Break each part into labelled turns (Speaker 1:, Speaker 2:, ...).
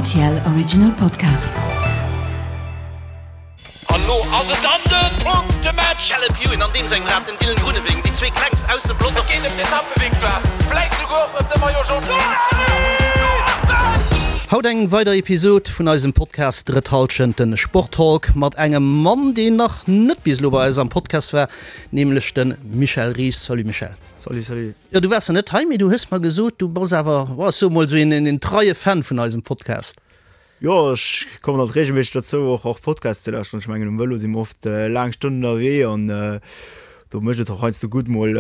Speaker 1: Rtl Original Podcast.
Speaker 2: An lo ass et dann den Punktematch!
Speaker 3: Caleb Ewan an deem sengem Rad, den Dylan Groenewegen, déi zwee klengst aus dem Pelotong.
Speaker 2: Et geet ëm d'Etappevictoire, vläit souguer och ëm de Maillot Jaune.
Speaker 3: Haut eng weider Episod vun eisem Podcast Drëtt Halschent, den Sporttalk mat engem Mann, deen nach net bis elo bei eis am Podcast war, nämlech de Michel Ries. Salut Michel.
Speaker 4: Salut, salut.
Speaker 3: Jo, du waars nach net hei, mee du hues mer gesot, du bass awer, ech soe mol esou een treie Fan vun eisem Podcast.
Speaker 4: Jo, ech kommen alt regelméisseg dozou och och Podcasts ze lauschteren. Ech mengen um Vëlo si mer oft laang Stonnen ënnerwee an do mécht et och heiansdo gutt mol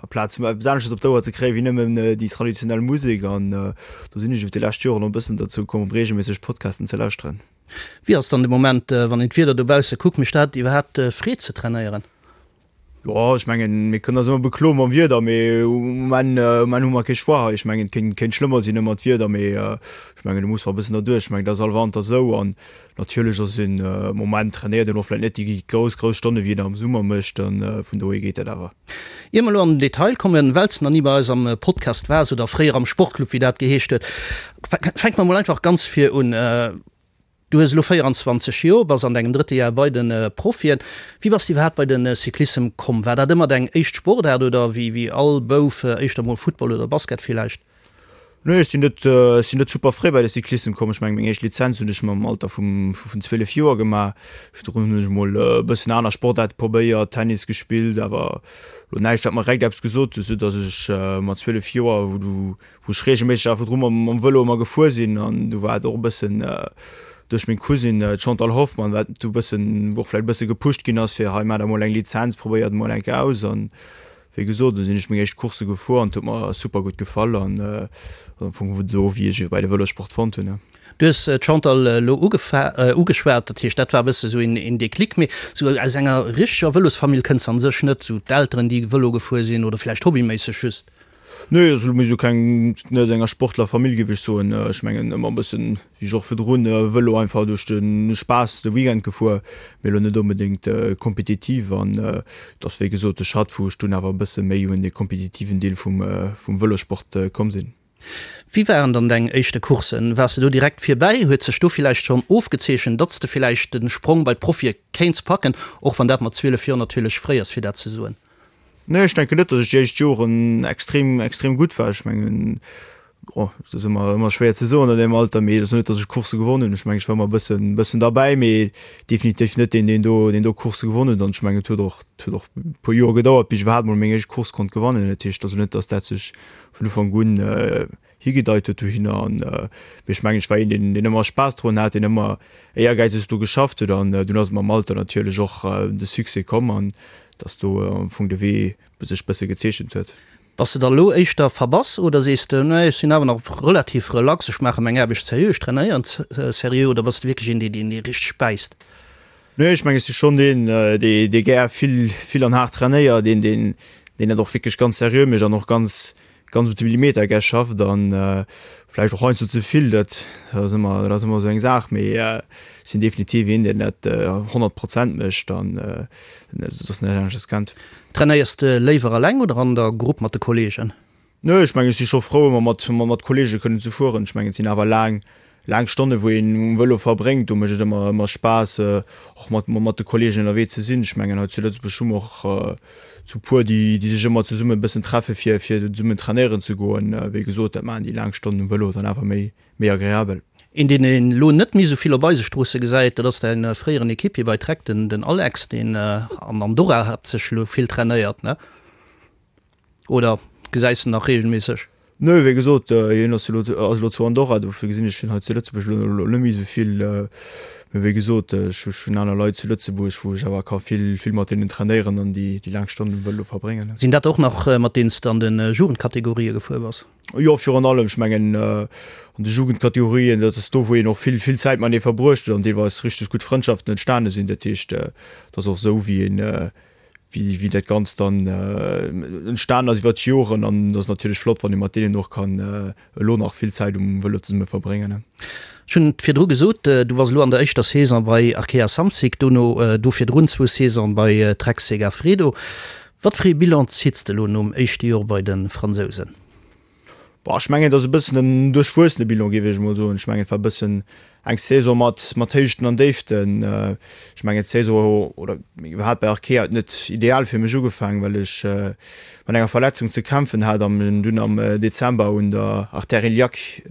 Speaker 4: aplaz eppes anesches op d'Ouer ze kréien wéi nëmmen déi traditionell Musek an do sinn ech iwwer déi lescht Joren och e bëssen dozou komm regelméisseg Podcasten ze lauschteren.
Speaker 3: Wéi ass dann de Moment, wann een d'Wieder dobausse kuckt, mécht dat iwwerhaapt Freed ze trainéieren?
Speaker 4: Jo, ech mengen, mir kënnen eis ëmmer bekloe mam Wieder, mee um Enn, um Enn hu mer kee Choix hei. Ech mengen, et kéint, kéint schlëmmer sinn ëmmer d'Wieder, mee ech mengen, do muss mer e bëssen derduerch. Ech mengen, dat ass all Wanter esou an natierlech ass een am Moment trainéiert een och vläicht net déi grouss, grouss Stonne wéi een am Summer mécht an vun dohier geet dat awer.
Speaker 3: Ier mer elo an den Detail kommen, well s de nach ni bei eis am Podcast waars oder fréier am Sportclub, wéi dat geheescht huet, fänke mer mol einfach ganz vir un. Du hues elo 24 Joer, bass an dengem drëtte Jar bei de Profien. Wéi bass de iwwerhaapt bei de Cyclissem komm? War dat ëmmer deng éischt Sportaart oder wéi wéi all Bouf éischter mol Football oder Basket villäicht?
Speaker 4: Nee, ech sinn net, ech sinn net super fréi bei de Cyclissem komm. Ech mengen, meng éischt Lizenz hunn ech mam Alter vum vun 12 Joer gemaach. Virdrun hunn ech mol e bëssen aner Sportaarte probéiert, Tennis gespillt, awer elo näischt wat mer direkt eppes gesot huet, soudass ech mat 12 Joer, wou du wou ech regelméisseg awer virdru mam Vëlo ëmmer gefuer sinn an du war et och e bëssen duerch meng Cousine d'Chantal Hoffmann, wat du bëssen, wou och vläicht e bësse gepusht ginn ass fir hei maach der mol eng Lizenz, probéier et mol eng Kéier aus an wéi gesot, du sinn ech meng éischt Coursse gefuer an et huet mer super gutt gefall an am Fong esou wéi ech bei de Vëlossport fonnt hunn.
Speaker 3: Du hues d'Chantal elo ugeschwat, dat heescht dat war e bësse sou een Déclic, mee sou aus enger richteger Vëlosfamill kënns de an sech net, sou d'Elteren déi Vëlo gefuer sinn oder vläicht hobbyméisseg just?
Speaker 4: Nee, also mir si keng, net aus enger Sportlerfamill géif ech soen. Ech mengen ëmmer e bëssen, wéi ech och virdrun, Vëlo einfach duerch de Spaass de Weekend gefuer, mee elo net onbedéngt kompetitiv. An et ass wéi gesot de Schratt, wou ech dunn awer e bësse méi un de kompetitiven Deel vum Vëlossport komm sinn.
Speaker 3: Wéi waren dann deng éischte Courssen? Waars de do direkt virbäi? Huet sech do villäicht schonn ofgezeechent, datt s de villäicht de Sprong bei d'Profie kéints packen, och wann dat mat 12 Joer natierlech fréi ass fir dat ze soen?
Speaker 4: Nee, ech denken net, datt ech déi éischt Joren extrem, extrem gutt war. Ech mengen, oh, et ass ëmmer, ëmmer schwéier ze soen an deem Alter, mee et ass net, datt ech Coursse gewonnen hunn. Ech mengen, ech war ëmmer e bëssen, bëssen derbäi, mee definitiv net deen, deen do, deen do Coursse gewonnen huet. An ech mengen, et huet och, et huet och e puer Joer gedauert, bis ech iwwerhaapt mol meng éischt Course konnt gewannen. Dat heescht also net, datt dat sech vun Ufank un higedeit huet dohinner an mee ech mengen ech war een deen deen ëmmer Spaass drun hat, deen ëmmer éiergäizeg do geschafft huet an dunn ass mam Alter natierlech och de Succès komm an dass do am Fong de Wee sech bësse gezeechent huet.
Speaker 3: Bass de da lo éischter verbass oder sees de, nee ech sinn awer nach relativ relax, ech maache meng Aarbecht seriö, ech trainéieren seriö oder bass de wierklech een deen deen richteg bäisst?
Speaker 4: Nee, ech mengen, ech si schonn deen, dee gär vill, vill an haart trainéiert, een, deen, deen dat och wierklech ganz seriö mécht an och ganz, ganz op de Millimeter gär schafft an vläicht och heiansdo ze vill. Dat ass ëmmer, dat ass ëmmer esou eng Saach, mee ech sinn definitiv een, deen dat 100 Prozent mécht an soss näischt anesches kennt.
Speaker 3: Trainéiers de léiwer eleng oder an der Grupp mat de Kolleegen?
Speaker 4: Nee, ech mengen, ech si scho frou, ëmmer mat, mat Kollege kënnen ze fueren. Ech mengen, et sinn awer laang, laang Stonne wou een um Vëlo verbréngt. Do mécht et ëmmer, ëmmer Spaass, och mat, mat de Kollegen ënnerwee ze sinn. Ech mengen, hei zu Lëtzebuerg hu mer och zu puer, déi, déi sech ëmmer zesumme e bëssen treffe fir, fir zesummen trainéieren ze goen. Wéi gesot, dat maachen déi laang Stonnen um Vëlo dann awer méi, méi agreabel.
Speaker 3: Een, deen een elo net méi esou vill op eise Stroosse gesäit, dat ass däin fréieren Equipier bei Trek, den, den Alex, deen an Andorra haaptsächlech elo vill trainéiert, ne? Oder gesäis de nach regelméisseg?
Speaker 4: Nö, wéi gesot, hien ass elo ass elo zu Andorra, dofir gesinn ech hien hei zu Lëtzebuerg elo net méi esou vill. Mee wéi gesot, ech hunn aner Leit zu Lëtzebuerg, wou ech awer ka vill vill mat deenen trainéieren an déi déi laang Stonnen um Vëlo verbréngen.
Speaker 3: Sinn dat och nach mat deenen s de an de Jugendkategorië gefuer bass?
Speaker 4: Jo, virun allem. Ech mengen an de Jugendkategorien, dat ass do wou een och vill vill Zäit matenee verbruecht huet an deelweis richteg gutt Frëndschaften entstane sinn. Dat heescht, et ass och esou wéi een wéi dat Ganzt dann entstan ass iwwer d'Joren an et ass natierlech flott, wann ee mat deenen och kann elo nach vill Zäit um Vëlo zesumme verbréngen.
Speaker 3: Ech hunn et virdru gesot, du bass elo an der éischter Saison bei Arkea Samsic, dono do virdrun zwou Saisonen bei Trek Segafredo. Wat fir ee Bilan zitts de elo nom éischte Jor bei de Fransousen?
Speaker 4: Bon, ech mengen, et ass e bëssen en duerchwuessene Bilan, géif ech emol soen. Ech mengen, et war e bëssen eng Saison mat, mat Héichten an Déiften. Ech mengen, d'Saison, oder iwwerhaapt bei Arkea huet net ideal fir mech ugefaangen, well ech mat enger Verletzung ze kämpfen hat an dunn am Dezember un der Artère iliaque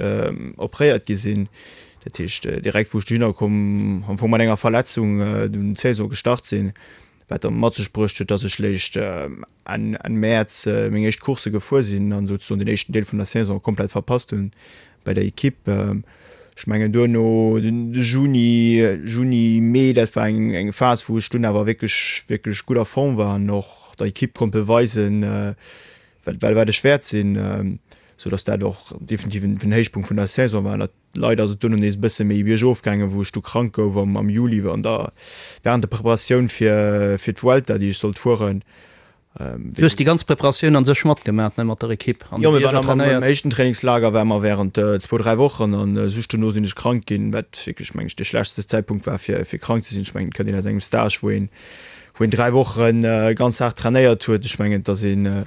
Speaker 4: opréiert gi sinn. Dat heescht, direkt wou ech dohinner komm, am Fong mat enger Verletzung dunn d'Saison gestart sinn, wat da mat sech bruecht huet, dass ech léischt Enn Mäerz meng éischt Coursse gefuer sinn an souzesoen den éischten Deel vun der Saison komplett verpasst hunn bei der Equipe. Ech mengen duerno de Juni, Juni, Mee, dat war eng eng Phas wou ech dunn awer wierklech wierklech gutt a Form war an och der Equipe konnt beweisen, wat wat ech wäert sinn, sou datt dat och definitiv en Héichpunkt vun der Saison war. Leider ass et duerno nees e bësse méi biergof gaangen, wou ech du krank gouf am am Juli an der während der Preparatioun fir fir d'Vuelta, déi ech sollt fueren.
Speaker 3: Du hues déi ganz Preparatioun an sech matgemaach, ne, mat der Ekipp
Speaker 4: an de Bierger trainéiert? Jo, mir waren am éischten Trainingslager ware mer während zwou, dräi Wochen an just duerno sinn ech krank ginn, wat wierklech, meng ech, dee schlechtste Zäitpunkt war fir fir krank ze sinn. Ech mengen, et kënnt een aus engem Stage, wou een wou een dräi Woche ganz haart trainéiert huet. Ech mengen, et ass een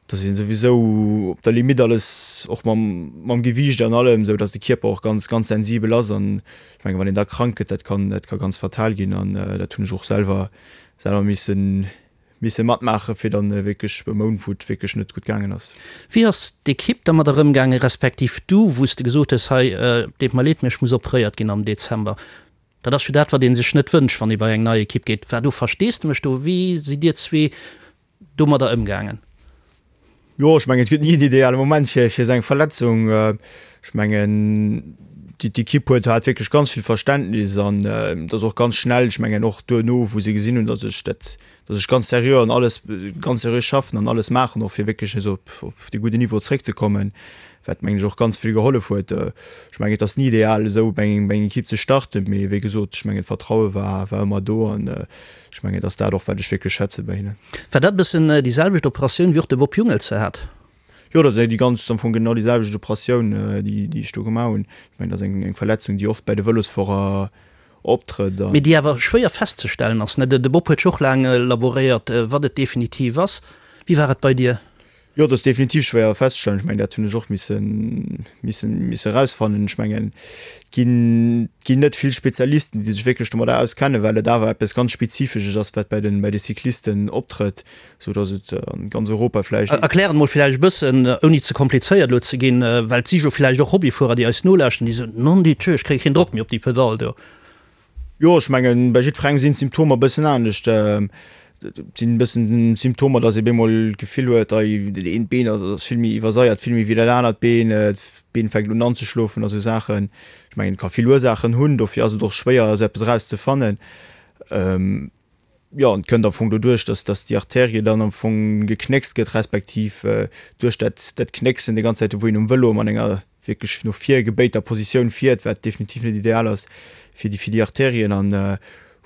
Speaker 4: dass een souwisou op der Limite alles, och mam mam Gewiicht an allem, sou dass de Kierper och ganz ganz sensibel ass an ech mengen wann een da krank gëtt, dat kann dat ka ganz fatal ginn an dat hunn ech och selwer selwer missen misse matmaache fir dann wierklech e Mount wou et wierklech net gutt gaangen ass.
Speaker 3: Wéi ass d'Ekipp dermat erëmgaangen, respektiv du, wou s de gesot hues, hei deet mer leed, mee ech muss operéiert ginn am Dezember? Dat ass jo dat wat ee sech net wënscht, wann ee bei eng nei Ekipp geet. War do Versteesdemech do? Wéi sidd Dir zwee domadder ëmgaangen?
Speaker 4: Jo, ech mengen, et gëtt ni en ideale Moment fir fir esou eng Verletzung. Ech mengen, déi d'Ekipp huet hat wierklech ganz vill Verständnis an et ass och ganz schnell, ech mengen och duerno, wou se gesinn hunn, datt ech dat, datt ech ganz seriö an alles, ganz seriö schaffen an alles maachen och fir wierklech nees op op dee gudden Niveau zréckzekommen, wat mengen ech och ganz vill gehollef huet. Ech mengen, et ass ni ideal esou bei eng bei eng Ekipp ze starten, mee wéi gesot, ech mengen d'Vertraue war war ëmmer do an Ech mengen, et ass dat och, wat ech wierklech schätze bei hinnen.
Speaker 3: War dat e bëssen déi selwecht Operatioun, wéi och de Bob Jungels se hat?
Speaker 4: Jo, dat ass déi ganz, am Fong genau déi selwecht Operatioun, déi, déi ech do gemaach hunn. Ech mengen, dat ass eng, eng Verletzung, déi oft bei de Vëlosfuerer optrëtt
Speaker 3: an. Mee déi awer schwéier festzestellen ass, ne? De Bob huet jo och laang laboréiert, wat et definitiv ass. Wéi war et bei dir?
Speaker 4: Jo, dat ass definitiv schwéier festzestellen. Ech mengen, dat hunn ech och missen, missen, misse erausfannen. Ech mengen, et ginn, et ginn net vill Spezialisten, déi sech wierklech domadder auskennen, well et awer eppes ganz Spezifesches ass, wat bei den, bei de Cyclisten optrëtt, sou datt et an ganz Europa vläicht.
Speaker 3: Erklär et mol vläicht e bëssen, ouni ze komplizéiert elo ze ginn, well et si jo vläicht och Hobbyfuerer, déi eis nolauschten, déi soen, Non Dieu, ech kréie keen Drock méi op déi Pedall do.
Speaker 4: Jo, ech mengen, bei jiddwerengem sinn d'Symptomer e bëssen anescht. Et sinn e bëssen Symptomer, datt ee bemol d'Gefill huet, ei dat eent Been ass ass vill méi iwwerseiert, vill méi wéi dat anert Been, d'Been fänkt un anzeschlofen a sou Saachen. Ech mengen, et ka vill Ursaachen hunn, dofir ass et och schwéier, esou eppes erauszefannen. Jo, an et kënnt am Fong doduerch, dass, dass déi Arterie dann am Fong geknéckst gëtt, respektiv duerch dat, dat Knécksen déi ganz Zäit, wou een um Vëlo an enger wierklech no vir gebéiter Positioun fiert, wat definitiv net ideal ass fir déi, fir déi Arterien an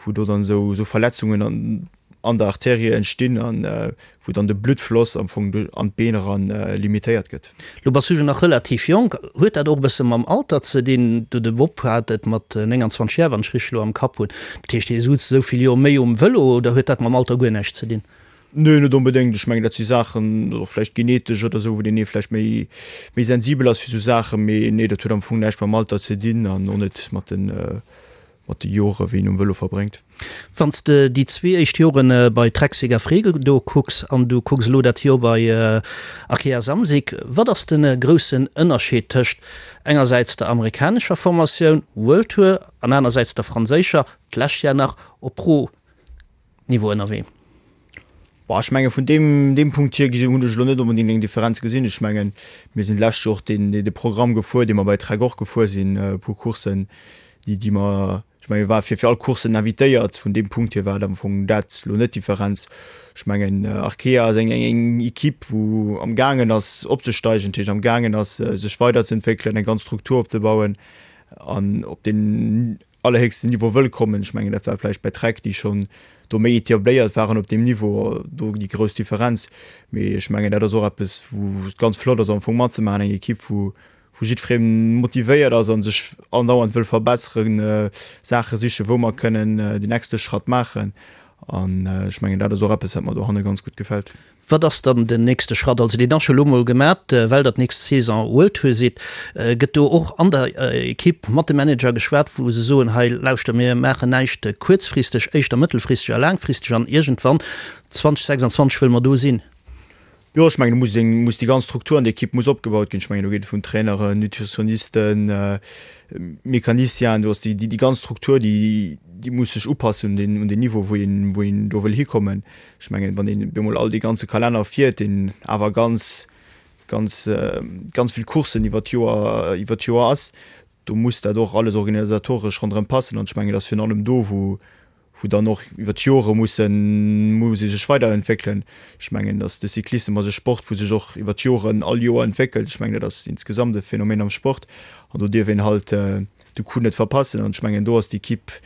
Speaker 4: wou do dann esou, esou Verletzungen an, an der Arterie entstinn an wou dann de Bluttfloss am Fong an d'Been eran limitéiert gëtt.
Speaker 3: Lo bass du jo nach relativ jonk. Huet dat och e bësse mam Alter ze dinn? Du, de Bob hat et mat 29 Jar, wann ech richteg elo am Kapp hunn. Dat heescht, hie sutz esou vill Joer méi um Vëlo oder huet dat mam Alter guer näischt ze dinn?
Speaker 4: Nee, net onbedéngt. Ech mengen, dat si Saachen, och vläicht genetesch oder esou, wou deen ee vläicht méi, méi sensibel ass fir esou Saachen. Mee nee, dat huet am Fong näischt mam Alter ze dinn an och net mat den, mat de Jore wéi een um Vëlo verbréngt.
Speaker 3: Wann s de déi zwee éischt Jore bei Trek Segafredo kucks an du kucks elo dat Joer bei Arkea Samsic, wat ass de groussen Ënnerscheed tëscht engersäits der amerikanescher Formatioun, World Tour, an anersäits der franséischer, d'lescht Jar nach op Pro Niveau ënnerwee?
Speaker 4: Bon, ech menge vun deem, deem Punkt hier gesi hunn ech elo net onbedéngt eng Differenz gesinn. Ech mengen, mir sinn d'lescht Joer och deen, dee Programm gefuer, dee mer bei Trek och gefuer sinn, e puer Courssen, déi, déi mer, ech menge mir ware fir, fir all Courssen invitéiert. Vun deem Punkt hier war et am Fong dat elo net d'Differenz. Ech mengen, Arkea ass eng, eng, eng Equipe, wou am gaangen ass opzesteigen, dat heescht am gaangen ass sech weiderzeentwéckelen, eng ganz Struktur opzebauen an op deen, allerhéchsten Niveau wëll kommen. Ech mengen, dat war vläicht bei Trek, déi schonn do méi etabliert waren op deem Niveau, do déi grouss Differenz. Mee ech mengen, dat ass och eppes, wou et ganz flott ass am Fong matzemaachen, eng Ekipp, wou wou jiddweree motivéiert ass a sech andauernd wëll verbesseren, Saache sichen, wou mer kënnen den nächste Schratt maachen. An ech mengen, dat ass och eppes, wat mer dohanne ganz gutt gefält.
Speaker 3: Wat ass dann den nächste Schratt? Also deen ass scho lo mol gemat, well der d'nächst Saison World Tour sidd. Gëtt do och an der Ekipp mat de Manager geschwat, wou se soen, hei lauschter, mir maachen näischt kuerzfristeg, éischter mëttelfristeg a laangfristeg an iergendwann 2026 wëlle mer do sinn?
Speaker 4: Jo, ech mengen, do muss eng, muss déi ganz Struktur an der Ekipp muss opgebaut ginn. Ech mengen, do geet et vun Traineren, Nutritionisten, Mecanicienen, do ass déi, déi ganz Struktur, déi, déi muss sech upassen un deen, un deen Niveau, wou een, wou een do wëll hikommen. Ech mengen, wann een op eemol all dee ganze Kalenner fiert, deen awer ganz, ganz, ganz vill Courssen iwwer d'Joer, iwwer d'Joer ass, do muss dat och alles organisatoresch ronderëm passen. An ech mengen, et ass virun allem do, wou, wou dann och iwwer d'Jore mussen, muss ee sech weiderentwéckelen. Ech mengen, datt de Cyclissem ass e Sport, wou sech och iwwer d'Joren all Joer entwéckelt. Ech mengen, dat ass insgesamt e Phänomen am Sport an do dierf een halt de Coup net verpassen. An ech mengen, do ass d'Equipe,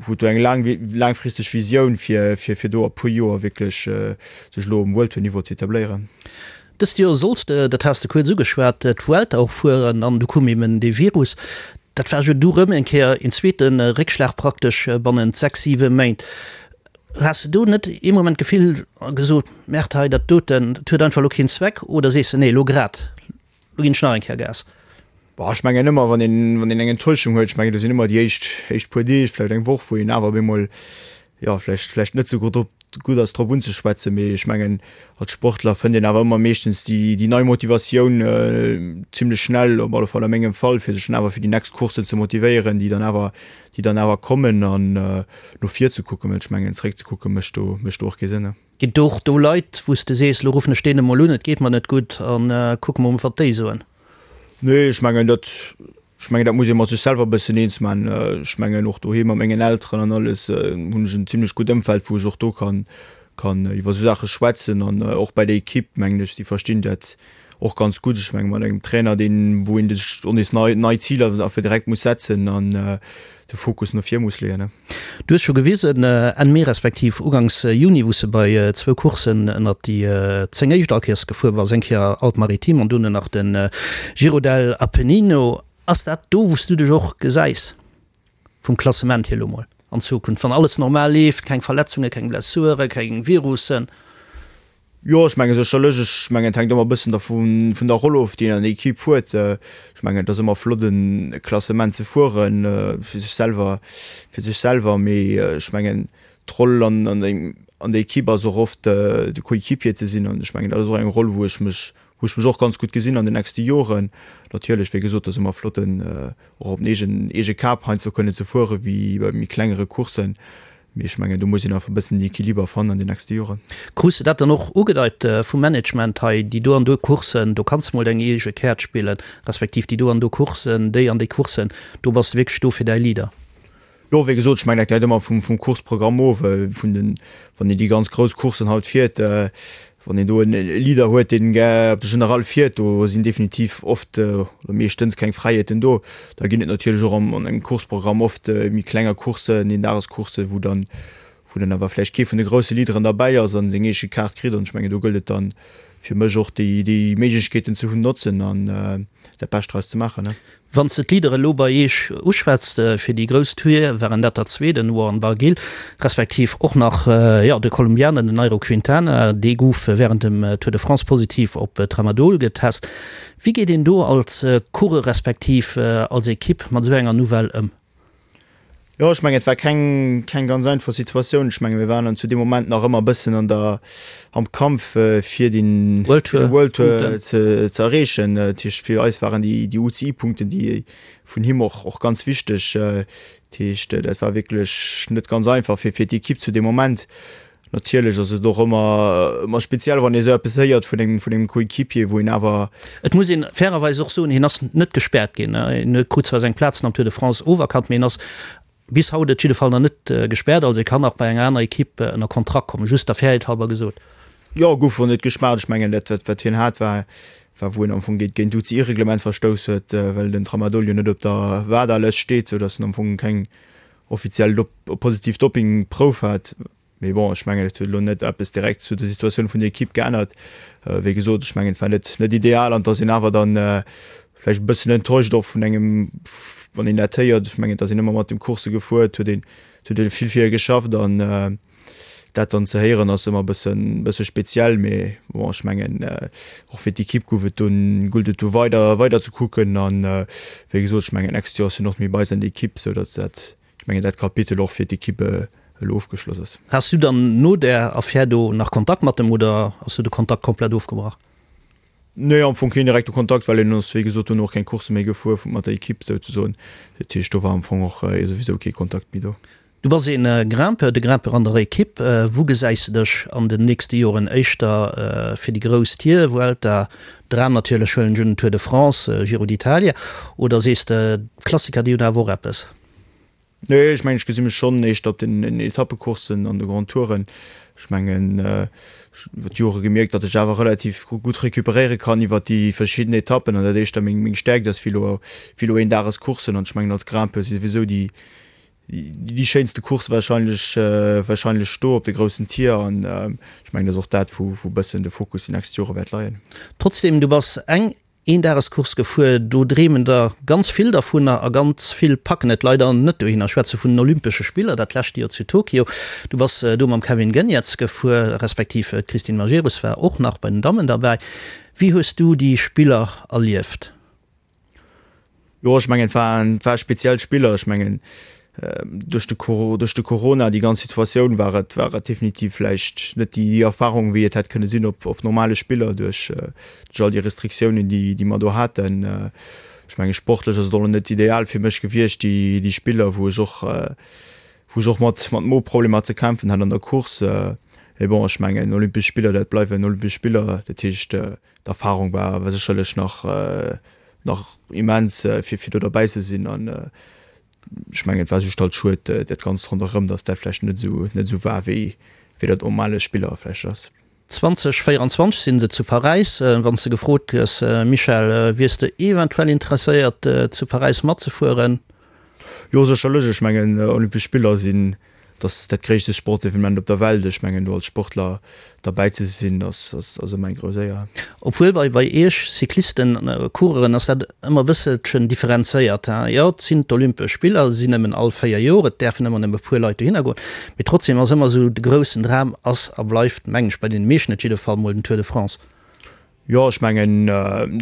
Speaker 4: huet do eng laang, laangfristeg Visioun, fir, fir, fir do a puer Joer wierklech sech elo um World-Tour-Niveau ze etabléieren.
Speaker 3: Dëst Joer solls de, dat has de kuerz ugeschwat, d'Vuelta och fueren an du koum eben dee Virus. Dat war jo du rëm eng Kéier een zweete Réckschlag praktesch bannent 6, 7 Méint. Has de do net ee Moment d'Gefill a gesot, Merde hei, dat doten, dat huet einfach elo keen Zweck oder sees de, nee elo grad, elo ginn ech nach eng Kéier Gas?
Speaker 4: Boah, ech mengen ëmmer, wann een, wann een eng Enttäuschung huet, ech mengen, do sinn ëmmer déi éischt, éischt puer Deeg, vläicht eng Woch, wou een awer op eemol, jo, vläicht, vläicht net esou gutt drop, gutt ass drop unzeschwätzen. Mee ech mengen, als Sportler fënnt een awer ëmmer meeschtens déi, déi nei Motivatioun zimlech schnell, op alle Fall a mengem Fall, fir sech dann awer fir déi nächst Courssen ze motivéieren, déi dann awer, déi dann awer kommen an no vir ze kucken, well ech mengen, zeréck ze kucke mécht do, mécht do och kee Sënn.
Speaker 3: Ginn et och do Leit, wou s de sees, elo ruffen ech deen emol un, et geet mer net gutt a kucke mol, wat déi soen?
Speaker 4: Nee, ech mengen dat, ech mengen dat muss ee mat sech selwer e bëssen eens man. Ech mengen och doheem mat mengen Elteren an alles hunn ech en zimlech gutt Ëmfeld, wou ech och do kann, kann iwwer esou Saache schwätzen an och bei der Equipe mengen ech, déi verstinn dat och ganz gutt. Ech menge mat engem Trainer, deen, wou een sech och nees nei, nei Ziler einfach direkt muss setzen an de Fokus no vir muss leeën.
Speaker 3: Du hues scho gewisen, Enn Mee respektiv ugangs Juni, wou s de bei zwou Courssen ënnert déi 10 éischt all Kéiers gefuer bass, eng Kéier Alpes-Maritimes an dono nach de Giro del Appennino. Ass dat do, wou s du dech och gesäis vum Klassement hier elo mol an Zukunft, wann alles normal leeft, keng Verletzungen, keng Blessuren, keng Virussen?
Speaker 4: Jo, ech menge sécherlech. Ech mengen, et hänkt ëmmer e bëssen dervu vun der Roll of, déi een an der Equipe huet. Ech mengen, et ass ëmmer flott, e Klassement ze fueren, fir sech selwer, fir sech selwer. Mee ech mengen, d'Roll an an der Equipe ass och oft, de Coéquipier ze sinn. An ech mengen, dat ass och eng Roll, wou ech mech, wou ech mech och ganz gutt gesinn an den nächste Joren. Natierlech, wéi gesot, et ass ëmmer flott, en och op den eegen, eege Kap heiansdo kënnen ze fuere wéi bei méi klengere Courssen. Mee ech mengen, do muss een einfach e bëssen den Equiliber fannen an den nächste Joren.
Speaker 3: Krus de dat dann och ugedeit vum Management hei, déi do an do Courssen, do kanns de mol deng eege Käert spillen, respektiv déi do an do Courssen, déi an déi Courssen, do bass de wierklech do fir däi Leader?
Speaker 4: Jo, wéi gesot, ech mengen, dat läit ëmmer vum Courseprogramm of, vun den, wann een déi ganz grouss Courssen halt fiert, Wann een do e Leader huet, deen gär op de General fiert, do sinn definitiv oft oder meeschtens keng Fräiheeten do. Da ginn et natierlech och an engem Courseprogramm oft méi klenger Courssen, Eendagescourssen, wou dann, wou dann awer vläicht kee vun de grousse Leaderen derbäi ass a seng eege Kaart kritt. An ech mengen, do gëllt et dann fir mech och déi, déi Méiglechkeeten ze hunn, notzen an dat Bescht draus ze maachen.
Speaker 3: Wann s de d'Leadere elo bei Eech uschwätzt, fir déi grouss Tour waren dat der zwee, den Warren Barguil, respektiv och nach, jo, de Kolumbianer, den Nairo Quintana, dee gouf wärend dem Tour de France positiv op Tramadol getest. Wéi geet een do als Coureur respektiv als Ekipp mat esou enger Nouvelle ëm?
Speaker 4: Jo, ech mengen, et war keng, keng ganz einfach Situatioun. Ech menge mir waren dann zu deem Moment nach ëmmer e bëssen an der, am Kampf fir den World Tour, World Tour ze, ze erreechen. Dat heescht, fir eis waren déi, déi UCI-Punkten, déi vun him och, och ganz wichteg. Dat heescht, dat war wierklech net ganz einfach fir, fir d'Ekipp zu deem Moment. Natierlech ass et och ëmmer, ëmmer speziell, wann ee sou eppes héiert vun engem, vun engem Coéquipier, wou een awer.
Speaker 3: Et muss een fairerweis och soen, hien ass net gespäert ginn. Hien huet krut zwar seng Plazen am Tour de France oferkannt, mee hien ass bis haut et jidde Fall nach net gespäert. Also e kann nach bei enger aner Ekipp ënner Kontrakt kommen, just der Fairheet halber gesot.
Speaker 4: Jo, gouf och net gespaart. Ech mengen, dat wat, wat hien hat, war, war wou en am Fong géint, géint d'UCI-Reglement verstouss huet, well den Tramadol jo net op der WADA-Lëscht steet, soudass en am Fong keng offiziell positiv Doppingprouf hat. Mee bon, ech mengen, et huet elo net eppes direkt zu der Situatioun vun der Ekipp geännert. Wéi gesot, ech mengen, et war net net ideal an et ass een awer dann vläicht e bëssen enttäuscht och vun engem, wann een dat héiert. Ech mengen, et ass een ëmmer mat dem Coursse gefuer, et huet een, et huet ee vill fir e geschafft an. Dat dann ze héieren ass ëmmer e bëssen, bësse speziell, mee bon, ech mengen och fir d'Ekipp gouf et dunn, gullt et du weider, weider ze kucken an wéi gesot, ech mengen nächst Joer ass hien och méi bei eis an der Ekipp, sou datt dat, ech mengen dat Kapitel och fir d'Ekipp elo ofgeschloss ass.
Speaker 3: Has du dann no där Affär do nach Kontakt mat em oder ass du de Kontakt komplett ofgebrach?
Speaker 4: Nee, am Fong keen direkte Kontakt, well hien ass wéi gesot dunn och keng Coursse méi gefuer mat der Ekipp souzesoen. Dat heescht do war am Fong och souwisou kee Kontakt méi do.
Speaker 3: Du bass een Grimpeur, de Grimpeur an der Equipe. Wou gesäis de dech an den nächste Joren? Éischter fir déi grouss Tier, Vuelta, Dram natierlech, huelen ech un, Tour de France, Giro d'Italia, oder sees de, d'Klassiker déi hunn awer och eppes?
Speaker 4: Nee, ech mengen ech gesi mech schonn éischter op den Etappecourssen an de Grand Touren. Ech mengen ech hunn iwwer d'Jore gemierkt, datt ech awer relativ gutt recuperéiere kann iwwer déi verschidden Etappen an dat éischter meng Stäerkt ass wéi elo wéi elo Eendagescourssen. An ech mengen als Grimpeur si souwisou déi Déi schéinste Course wahrscheinlech wahrscheinlech do op de groussen Tier an ech mengen dat ass och dat wou wou bëssen de Fokus déi nächst Jore wäert leien.
Speaker 3: Trotzdem, du bass eng Eendagescourse gefuer, do dreemen der ganz vill dervunner a ganz vill packen et leider net dohinner. Ech schwätze vun den Olympesche Spiller dat lescht Joer zu Tokio. Du bass do mam Kevin Geniets gefuer, respektiv d'Christine Majerus war och nach bei den Dammen derbäi. Wéi hues du déi Spiller erlieft?
Speaker 4: Jo, ech mengen, et waren, et ware speziell Spiller. Ech mengen, duerch de Coro, duerch de Corona, déi ganz Situatioun, war et, war et definitiv vläicht net déi Erfarung, wéi et hätt kënne sinn op, op normale Spiller, duerch, duerch all déi Restriktiounen, déi, déi mer do haten. Ech mengen, sportlech ass et och net ideal fir mech gewiescht, déi, déi Spiller, wou ech och, wou ech och mat, mat Moproblemer ze kämpfen hat an der Course. Mee bon, ech mengen, Olympesch Spiller, dat bleiwen Olympesch Spiller. Dat heescht, D'Erfahrung war sécherlech nach nach immens fir fir do derbäi ze sinn an ech mengen et war just halt schued dat ganzt ronderëm, datt dat vläicht net esou net esou war wéi wéi dat normale Spiller vläicht ass.
Speaker 3: 2024 sinn se zu Paräis. Wann s de gefrot gëss, Michel, wiers de eventuell interesséiert zu Paräis matzefueren?
Speaker 4: Jo sécherlech, ech mengen Olympesch Spiller sinn Et ass dat gréisste Sportsevenement op der Welt. Ech mengen, do als Sportler derbäi ze sinn, ass ëmmer eng grouss Éier.
Speaker 3: Obwuel bei bei Iech Cyclisten, Coureuren ass dat ëmmer e bësselchen differenzéiert. Jo, et sinn d'Olympesch Spiller, se sinn nëmmen all 4 Joer, et däerfen ëmmer nëmme e puer Leit dohinner goen, mee trotzdem ass ëmmer esou de groussen Dram ass a bleift, mengen ech, bei deene meeschten et jidde Fall mol den Tour de France.
Speaker 4: Jo, ech mengen,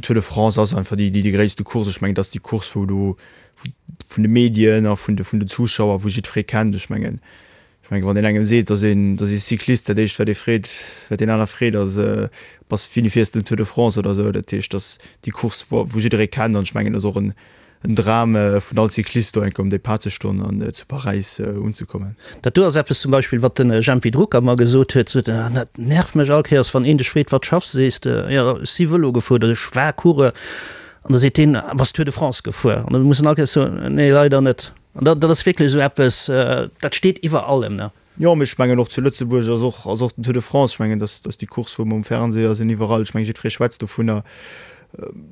Speaker 4: Tour de France ass einfach déi, déi gréisste Course. Ech mengen, dat ass déi Course, wou du vun de Medien a vun de, vun den Zuschauer, wou jiddweree kennt. Ech mengen, ech mengen, wann een engem seet, dass een, dass ee Cyclist, dat éischt, wat ee freet, wat deen aner freet, ass, Bass, wéini fiers de den Tour de France oder esou. Dat heescht, dat ass déi Course, wou, wou jidderee kennt. An ech mengen, dat ass och en, En Dram vun all Cyclist do eng Kéier um Depart ze stoen an zu Paräis unzekommen.
Speaker 3: Dat do ass eppes zum Beispill wat den Jempy Drucker mer gesot huet, sot en, dat nervt mech all Kéiers wann een dech freet wat schaffs de, sees de jo ech si Vëlo gefuer oder ech war Coureur an da seet deen bass Tour de France gefuer an da muss en all Kéiers soen nee leider net an dat ass wierklech esou eppes dat steet iwwer allem ne.
Speaker 4: Jo, mee ech mengen och zu Lëtzebuerg ass och, ass och den Tour de France, ech mengen, dass, dass déi Course, wou mer um Fernseher sinn, iwwerall, ech mengen, jiddweree schwätzt dovunner,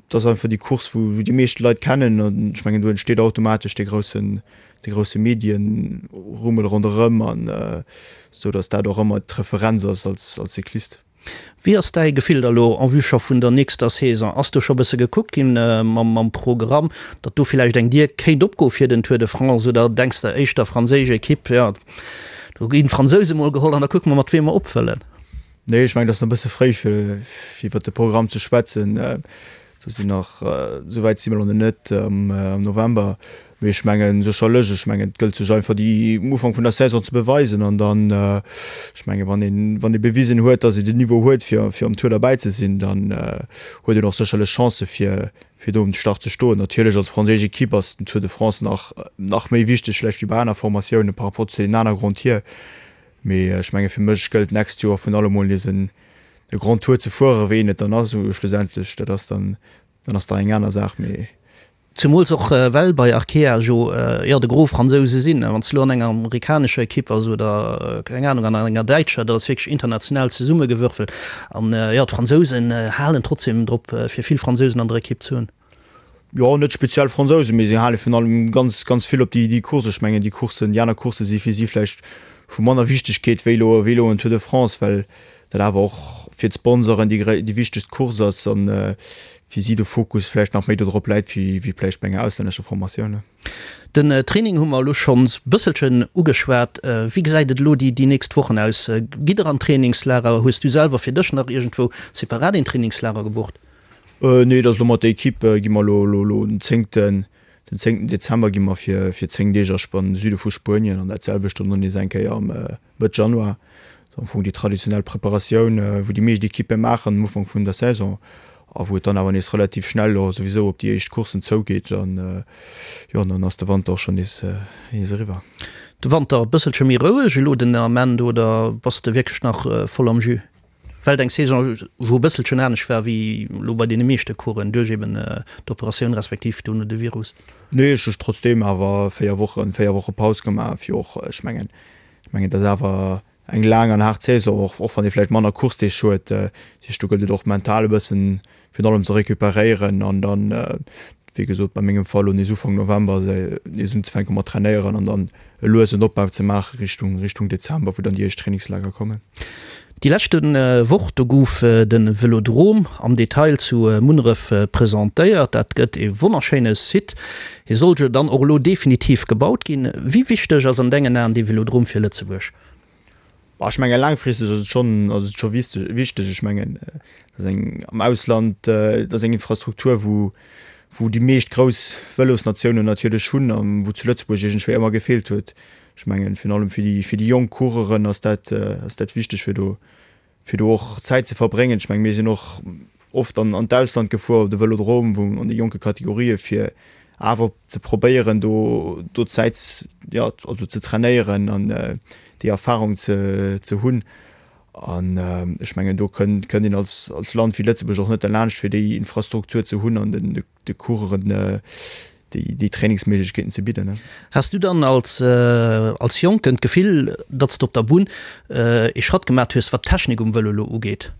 Speaker 4: dat ass einfach déi Course, wou, wou déi meescht Leit kennen an ech mengen, do entsteet automatesch dee groussen, dee grousse Medienrummel ronderëm an esou dass dat och ëmmer d'Referenz ass als, als Cyclist.
Speaker 3: Wéi ass däi Gefill da lo en vue scho vun der nächster Saison? Ass do scho bësse gekuckt ginn mam Programm, datt do villäicht eng Dier kéint opgoe fir den Tour de France oder denks de éischter franséisch Ekipp, jo do ginn d'Fransouse mol geholl an da kucke mer mat weem mer opfëllen?
Speaker 4: Nee, ech mengen et ass nach e bësse fréi fir iwwert de Programm ze schwätzen. Do sinn nach, esou wäit si mer elo net am November, mee ech mengen sécherlech, ech mengen et gëllt sech einfach déi um Ufank vun der Saison ze beweisen an dann, ech mengen wann een, wann ee bewisen huet, datt ee den Niveau huet fir fir am Tour derbäi ze sinn, dann huet een och sécherlech Chancë fir fir do um Start ze stoen. Natierlech als franséisch Ekipp ass den Tour de France nach nach méi wichteg vläicht wéi bei aner Formatioune par rapport zu deenen aner Grand Tier, mee ech menge fir mech gëllt d'nächst Joer vun allem mol nees en de Grand Tour ze fueren, wéi een et dann ass schlussendlech, dat ass dann, dann ass da eng aner Saach, mee.
Speaker 3: Zemools och well bei Arkea jo, jo, de Gros Fransouse sinn. Wann s de elo an enger amerikanescher Ekipp bass oder, keng Anung, an enger däitscher, dat ass wierklech international zesummegewürfelt. An, jo, d'Fransousen halen trotzdem drop, fir vill Fransousen an der Ekipp ze hunn.
Speaker 4: Jo, net speziell Fransousen, mee si hale virun allem ganz, ganz vill op déi, déi Course. Ech mengen, déi Courssen, déi aner Coursse si fir si vläicht vu manner Wichtegkeet wéi elo, wéi elo en Tour de France, well dat awer och fir d'Sponsoren déi, déi wichtegst Course ass an fir si de Fokus vläicht nach méi dodrop läit wéi, wéi vläicht bei enger auslännescher Formatioun.
Speaker 3: Den Training hu mer elo schonns bësselchen ugeschwat. Wéi gesäit et elo déi déi nächst Wochen aus? Gitt der an Trainingslager? Hues du selwer fir dech nach iergendwou separat een Trainingslager gebucht?
Speaker 4: Nee, et ass elo mat der Equipe gi mer elo elo den zéngten den zéngten Dezember gi mer fir fir 10 Deeg a an de Süde vu Spuenien an dat selwecht dann och nees eng Kéier am Mëtt Januar. Am Fong déi traditionell Preparatioun, wou déi meescht Ekippe maachen am Ufank vun der Saison a wou et dann awer nees relativ schnell och souwisou op déi éischt Courssen zougeet an jo, dann ass de Wanter och schonn nees eriwwer.
Speaker 3: De Wanter e bësselche méi roueg elo den Ament oder bass de wierklech nach voll am Jus? Well deng Saison jo e bësselchen anescht war wéi elo bei deene meeschte Coursen duerch eben d'Operatioun respektiv dono de Virus.
Speaker 4: Nee, ech hu trotzdeem awer 4 Wochen, 4 Woche Paus gemaach fir och, ech mengen, Ech mengen, et ass awer eng laang an haart Saison, och och wann ee vläicht manner Coursedeeg huet. Dat heescht, do gëllt et och mental e bëssen virun allem ze recuperéieren an dann, wéi gesot, bei mengem Fall elo nees Ufank November nees unzefänke mat trainéieren an dann e luesen Opbau ze maache Richtung Richtung Dezember, wou dann déi éischt Trainingslager kommen.
Speaker 3: Déi leschte Woch, do gouf de Vëlodrom am Detail zu Munneref presentéiert. Dat gëtt ee wonnerschéine Site. Hie soll jo dann och elo definitiv gebaut ginn. Wéi wichteg ass an dengen Aen dee Vëlodrom fir Lëtzebuerg?
Speaker 4: Ech menge laangfristeg ass et schonn, ass et scho wichteg. Ech mengen, dat ass eng am Ausland, dat ass eng Infrastruktur, wou, wou déi meescht grouss Vëlosnatiounen natierlech hunn a wou zu Lëtzebuerg iergendwéi ëmmer gefeelt huet. Ech mengen, virun allem fir déi, fir déi jonk Coureuren ass dat, ass dat wichteg, fir do, fir do och Zäit ze verbréngen. Ech mengen, mir sinn och oft an, an d'Ausland gefuer op de Vëlodrom, wou an de jonke Kategorië fir awer ze probéieren, do, do Zäit, jo, also ze trainéieren an déi Erfahrung ze, ze hunn. An ech mengen, do kënnt, kënnt een als, als Land wéi Lëtzebuerg och net derlaanscht, fir déi Infrastruktur ze hunn an den, de Coureuren déi Trainingsméiglechkeeten ze bidden.
Speaker 3: Has du dann als als Jonken d'Gefill, datt s de op der Bunn ee Schratt gemat hues, wat d'Technik um Vëlo elo ugeet?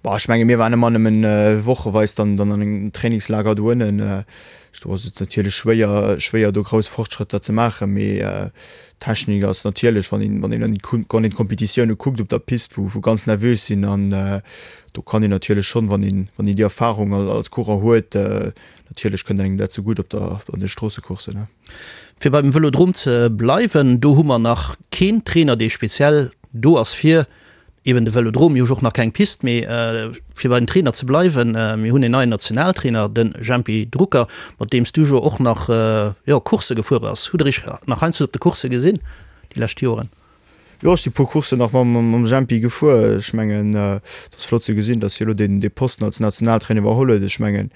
Speaker 4: Bah, ech menge mir waren ëmmer nëmmen wocheweis dann dann an engem Trainingslager do ënnen. Do ass et natierlech schwéier schwéier do grouss Fortschrëtter ze maachen, mee d'Technik ass natierlech, wann een wann een an wann een d'Kompetitioune kuckt op der Pist, wou wou ganz nervös sinn an Do kann een natierlech schonn, wann een, wann een déi Erfahrung als Coureur huet, natierlech kënnt engem dat zegutt op der, an de Stroossecourssen, ne.
Speaker 3: Fir beim Vëlodrom ze bleiwen, do hu mer nach keen Trainer, dee speziell do ass fir eben de Vëlodrom. Mir hu jo och nach keng Pist, mee fir bei den Trainer ze bleiwen, mir hunn en neien Nationaltrainer, de Jempy Drucker, mat deem s du jo och nach, jo, Coursse gefuer bass. Hutt der iech nach heiansdo op de Coursse gesinn déi lescht Joren?
Speaker 4: Jo, ech si puer Courssen nach mam Jempy gefuer. Ech mengen, et ass flott ze gesinn, datt hie elo dee Posten als Nationaltrainer iwwerholl huet. Ech mengen,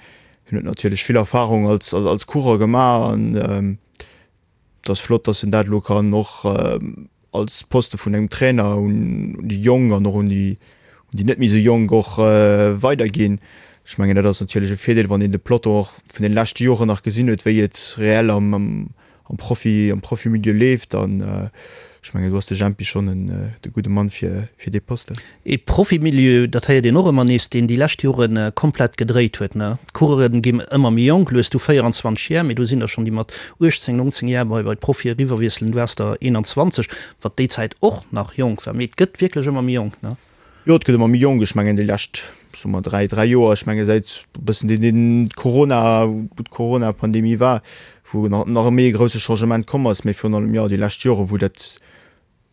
Speaker 4: hien huet natierlech vill Erfarung als als Coureur gemaach an et ass flott, datt en dat elo kann och als Poste vun engem Trainer un déi Jonk an och un déi un déi net méi esou Jonk och weiderginn. Ech mengen, dat ass natierlech e Virdeel, wann een de Peloton och vun de leschte Joren nach gesinn huet, wéi et reell am am Profi, am Profimilieu leeft an ech mengen do ass de Jempy schonn en de gudde Mann fir fir dee Posten.
Speaker 3: E Profimilieu, dat héiert een och ëmmer nees, deen déi lescht Jore komplett gedréit huet, ne? D'Coureuren ginn ëmmer méi jonk, elo hues du 24 Jar, mee do sinn der schonn déi mat 18, 19 Jar bei bei d'Profie eriwwerwiesselen, du waars der 21, wat déi Zäit och nach jonk war, mee et gëtt wierklech ëmmer méi jonk, ne?
Speaker 4: Jo, et gëtt ëmmer méi jonk. Ech mengen déi lescht, soe mer 3, 3 Joer, ech menge säit e bëssen deen, deen Corona, wou d'Corona-Pandemie war, wou nach, nach e méi e grousse Changement komm ass, mee virun allem, jo, déi lescht Jore wou dat,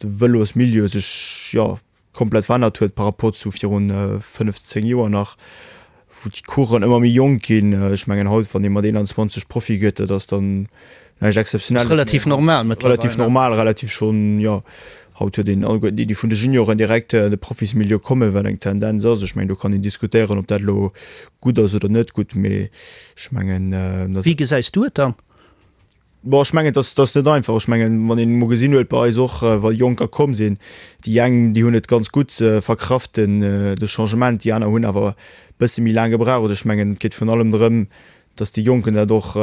Speaker 4: de Vëlosmilieu sech, jo, komplett verännert huet par rapport zu virun 5, 10 Joer nach, wou d'Coursen ëmmer méi jonk ginn. Ech mengen haut, wann ee mat 21 Profi gëtt, dat ass dann näischt Exzeptionelles
Speaker 3: méi. Relativ normal mëttlerweil.
Speaker 4: Relativ normal, relativ schonn, jo. Haut huet een alleguerten déi, déi vun de Junioren direkt an de Profismilieu kommen, wat eng Tendenz ass. Ech mengen, do kann een diskutéieren, ob dat elo gutt ass oder net gutt, mee ech mengen,
Speaker 3: dass. Wéi gesäis du et dann?
Speaker 4: Bon, ech mengen, et ass, et ass net einfach. Ech mengen, wann een emol gesinn huet bei eis och, wa Jonker komm sinn, déi eng, déi hunn et ganz gutt verkraft, den, de Changement, déi aner hunn awer e bësse méi laang gebraucht. Ech mengen, et geet virun allem drëm, datt déi Jonken dat och,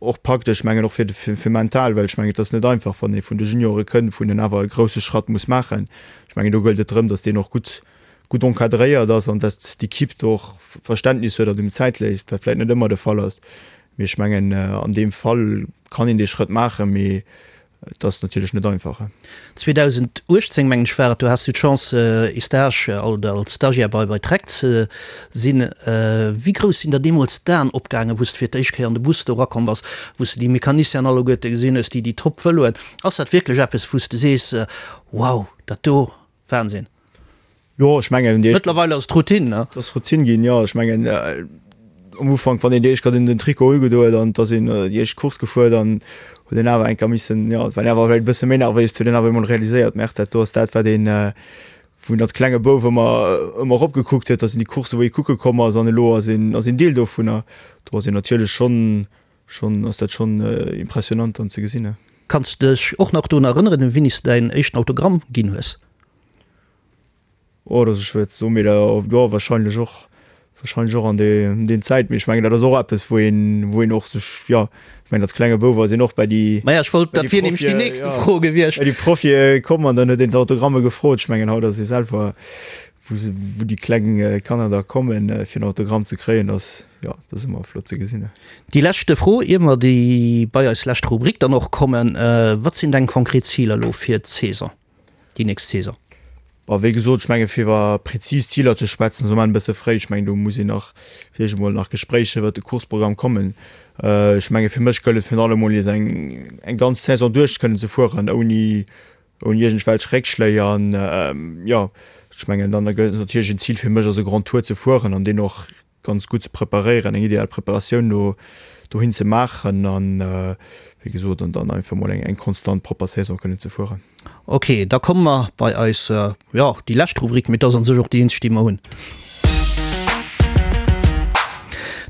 Speaker 4: och packt. Ech mengen och fir, fir mental, well ech mengen, et ass net einfach, wann ee vun de Juniore kënnt, wou een awer e grousse Schratt muss maachen. Ech mengen, do gëllt et drëm, datt deen och gutt, gutt encadréiert ass an datt d'Equipe do och Verständnis huet an him Zäit léisst, wat vläicht net ëmmer de Fall ass. Mee ech mengen, an deem Fall kann een dee Schrëtt maachen, mee. Et ass natierlech net einfach.
Speaker 3: 2018, mengen ech war et, do has du d'Chance ee Stage oder als Stagiaire bei bei Trek ze sinn. Wéi grouss sinn der deemools d'Aen opgaangen, wou s de fir d'éischt Kéier an de Bus do erakomm bass, wou s de déi Mecanicienen alleguerte gesinn hues, déi déi Top-Vëloen? Ass dat wierklech eppes, wou s de sees, Wow, dat do, Wahnsinn?
Speaker 4: Jo, ech mengen, déi éischt.
Speaker 3: Mëttlerweil ass et Routine, ne?
Speaker 4: Et ass Routine ginn, jo. Ech mengen, am Ufank, wann een déi éischt Kéier den Trikot ugedo huet an et ass een déi éischt Course gefuer, dann huet een awer eng Kéier missen, jo, et war een awer vläicht e bësse méi nervéis, huet een awer emol realiséiert, Merde, dat do ass dat, wat een, wou een als klenge Bouf ëmmer, ëmmer eropgekuckt huet. Dat sinn déi Courssen, wou ee kucke komm ass an elo ass een, ass een Deel dovunner. Do ass een natierlech schonn, schonn, ass dat schonn impressionant dann ze gesinn.
Speaker 3: Kanns de dech och nach drun erënneren, wéini s de däin éischten Autogramm ginn hues?
Speaker 4: Oh, dat ass schwéier ze soen, mee da, jo, wahrscheinlech och, wahrscheinlech och an dee, deen Zäit. Mee ech mengen, dat ass och eppes, wou een, wou een och sech, jo, ech mengen, als klenge Bouf ass een och bei déi,
Speaker 3: Maja, ech wollt,
Speaker 4: bei déi
Speaker 3: dat wier nämlech déi
Speaker 4: Profie,
Speaker 3: nächste
Speaker 4: jo,
Speaker 3: Fro gewiescht.
Speaker 4: bei déi Profie komm an dann huet een d'Autogramme gefrot. Ech mengen, haut ass ee selwer, wou se, wou déi kleng Kanner da kommen, fir en Autogramm ze kréien, dat ass, jo, dat ass ëmmer flott ze gesinn.
Speaker 3: Déi leschte Fro, ier mer déi bei eis lescht Rubrik dann och kommen, Wat sinn deng konkret Ziler elo fir d'Saison? déi nächst Saison?
Speaker 4: Bon, wéi gesot, ech menge fir iwwer prezis Ziler ze schwätzen, ass am Moment e bësse fréi. Ech mengen, do muss een nach fir d'éischt emol nach Gespréicher iwwert de Courseprogramm kommen. Ech menge fir mech gëllt et virun allem emol nees eng eng ganz Saison duerch kënnen ze fueren ouni ouni iergendwelch Réckschléi. An jo, ech mengen dann gëllt et natierlech en Zil fir mech ass e Grand Tour ze fueren an deen och ganz gutt ze preparéieren, eng ideal Preparatioun do dohin ze maachen an, wéi gesot, an dann einfach mol eng eng konstant propper Saison kënnen ze fueren.
Speaker 3: Ok, da komme mer bei eis, jo, déi lescht Rubrik, mee et ass an sech och déi eenzeg, déi mer hunn.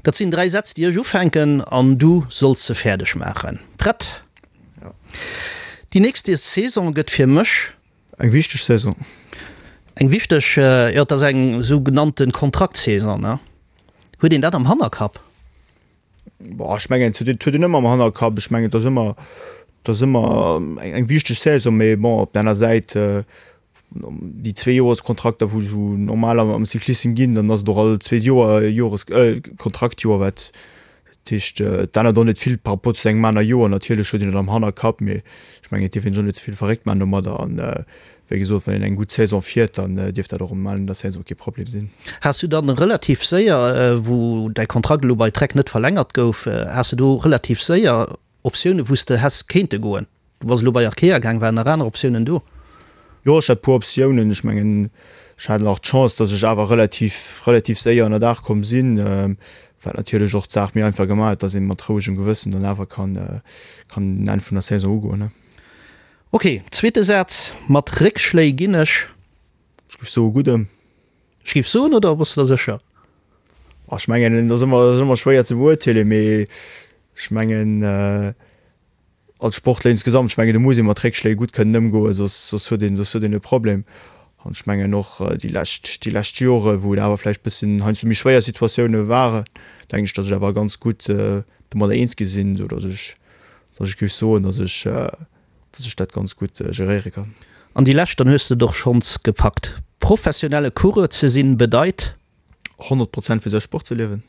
Speaker 3: Dat sinn 3 Sätz, déi ech ufänken an du solls se fäerdeg maachen. Prett?
Speaker 4: Jo.
Speaker 3: Déi nächst Saison gëtt fir mech.
Speaker 4: Eng wichteg Saison.
Speaker 3: Eng wichteg, jo, et ass eng sougenannte Kontraktsaison, ne? Huet een dat am Hannerkapp?
Speaker 4: Boah, ech mengen, et huet een ëmmer am Hannerkapp. Ech mengen, et ass ëmmer, et ass ëmmer eng wichteg Saison, mee bon, op der aner Säit, déi Zweejoreskontrakter, wou esou normal am Cyclissem ginn, dann ass et och all zweet Joer e Jores-, Kontraktjoer, wat Dat heescht, et ännert och net vill par rapport zu engem aner Joer. Natierlech huet een et am Hannerkapp, mee ech mengen, et dierf een sech och net ze vill verréckt maachen domadder. An wéi gesot, wann een eng gutt Saison fiert, dann dierf dat och um Enn der Saison kee Problem sinn.
Speaker 3: Has du dann relativ séier, wou däi Kontrakt elo bei Trek net verlängert gouf, has de do relativ séier Optiounen, wou s de häss kéinte goen? Du bass elo bei Arkea gaang, waren nach aner Optiounen do?
Speaker 4: Jo, ech hat e puer Optiounen. Ech mengen, ech hat nach d'Chance, datt ech awer relativ, relativ séier ënnerdaach komm sinn, wat natierlech och d'Saach méi einfach gemaach huet, datt ee mat rouegem Gewëssen dann awer kann, kann den Enn vun der Saison ugoen.
Speaker 3: Ok, zweete Saz, Mat Réckschléi ginn ech.
Speaker 4: Ech géif soe gutt ëm.
Speaker 3: Ech géif soen, oder bass de der sécher?
Speaker 4: Ech mengen, et ass ëmmer, ass ëmmer schwéier ze beurteelen, mee ech mengen, Als Sportler insgesamt, ech mengen do muss ee mat Réckschléi gutt kënnen ëmgoen, soss soss huet een soss huet een e Problem. An ech mengen och déi lescht déi lescht Jore wou et awer vläicht bëssen heiansdo méi schwéier Situatioune waren, denken ech, datt ech awer ganz gutt domadder eens gi sinn, esou datt ech datt ech géif soen, datt ech datt ech dat ganz gutt geréiere kann.
Speaker 3: An déi lescht, dann hues de et och schonns gepackt. Professionelle Coureur ze sinn bedeit.
Speaker 4: 100 Prozent fir säi Sport ze liewen.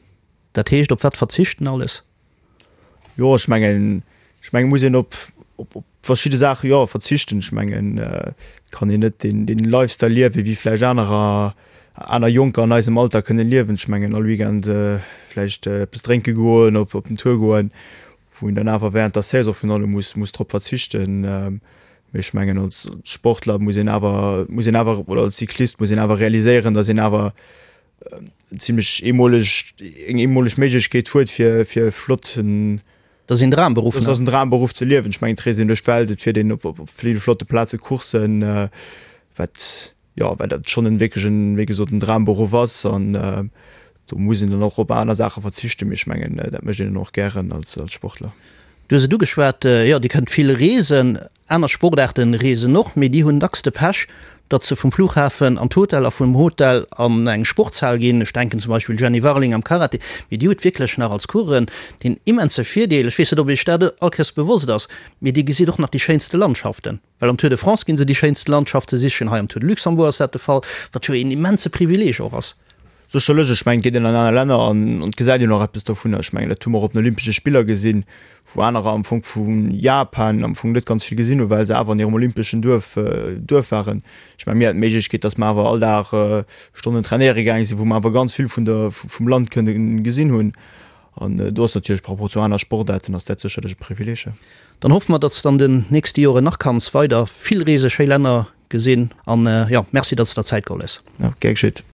Speaker 3: Dat heescht op wat verzichten alles?
Speaker 4: Jo, ech mengen, ech mengen, muss een op, op, op verschidde Saache, jo, verzichten. Ech mengen, et kann een net deen, deen Lifestyle liewen, wéi vläicht anerer, aner Jonker an eisem Alter kënne liewen. Ech mengen, all Weekend vläicht eppes drénke goen, op, op den Tour goen, wou een dann awer während der Saison virun allem muss, muss drop verzichten. Mee ech mengen, als Sportler muss een awer, muss een awer, oder als Cyclist muss een awer realiséieren, datt een awer zimlech eemoleg, eng eemoleg Méiglechkeet huet fir fir e flotten,
Speaker 3: Dat ass een Dramberuff,
Speaker 4: dat ass en Dramberuff ze liewen. Ech mengen et reest een duerch d'Welt, et fiert een op op ville flotte Plaze Courssen, wat jo wat dat schonn en wierklech en, wéi gesot, en Dramberuff ass an do muss een dann och op aner Saache verzichten, mee ech mengen dat mécht een dann och gären als als Sportler.
Speaker 3: Du hues et ugeschwat, jo Dir kënnt vill reesen. Aner Sportaarten reesen och, mee déi hunn dacks de Pech, datt se vum Flughafen an d'Hotel a vum Hotel an eng Sportshal ginn. Ech denken zum Beispill Jenny Warling am Karate, mee déi huet wierklech nach als Coureurin deen immense Virdeel, ech weess net, ob Iech dat allkéiers bewosst ass, mee Dir gesitt och nach déi schéinste Landschaften, well am Tour de France ginn se déi schéinste Landschafte sichen, hei am Tour de Luxembourg ass dat de Fall, wat jo een immense Privileeg och ass.
Speaker 4: Sécherlech, ech mengen, et geet een an aner Länner an et gesäit een och eppes dovunner. Ech mengen, dat hu mer och op den Olympesche Spiller gesinn, wou anerer am Fong vu Japan am Fong net ganz vill gesinn hunn, well se awer an hirem olympeschen Duerf Duerf waren. Ech mengen, mir haten d'Méiglechkeet, datt mer awer all Dag Stonnen trainéiere gaange sinn, wou mer awer ganz vill vun der vum Land kënne gesinn hunn. An do ass natierlech par rapport zu aner Sportaarten ass dat sécherlech e Privileeg.
Speaker 3: Dann hoffe mer, datt s de an den nächste Joren nach kanns weider vill reese, schéi Länner gesinn an jo, merci, datt s der Zäit geholl hues.
Speaker 4: Jo, gär geschitt.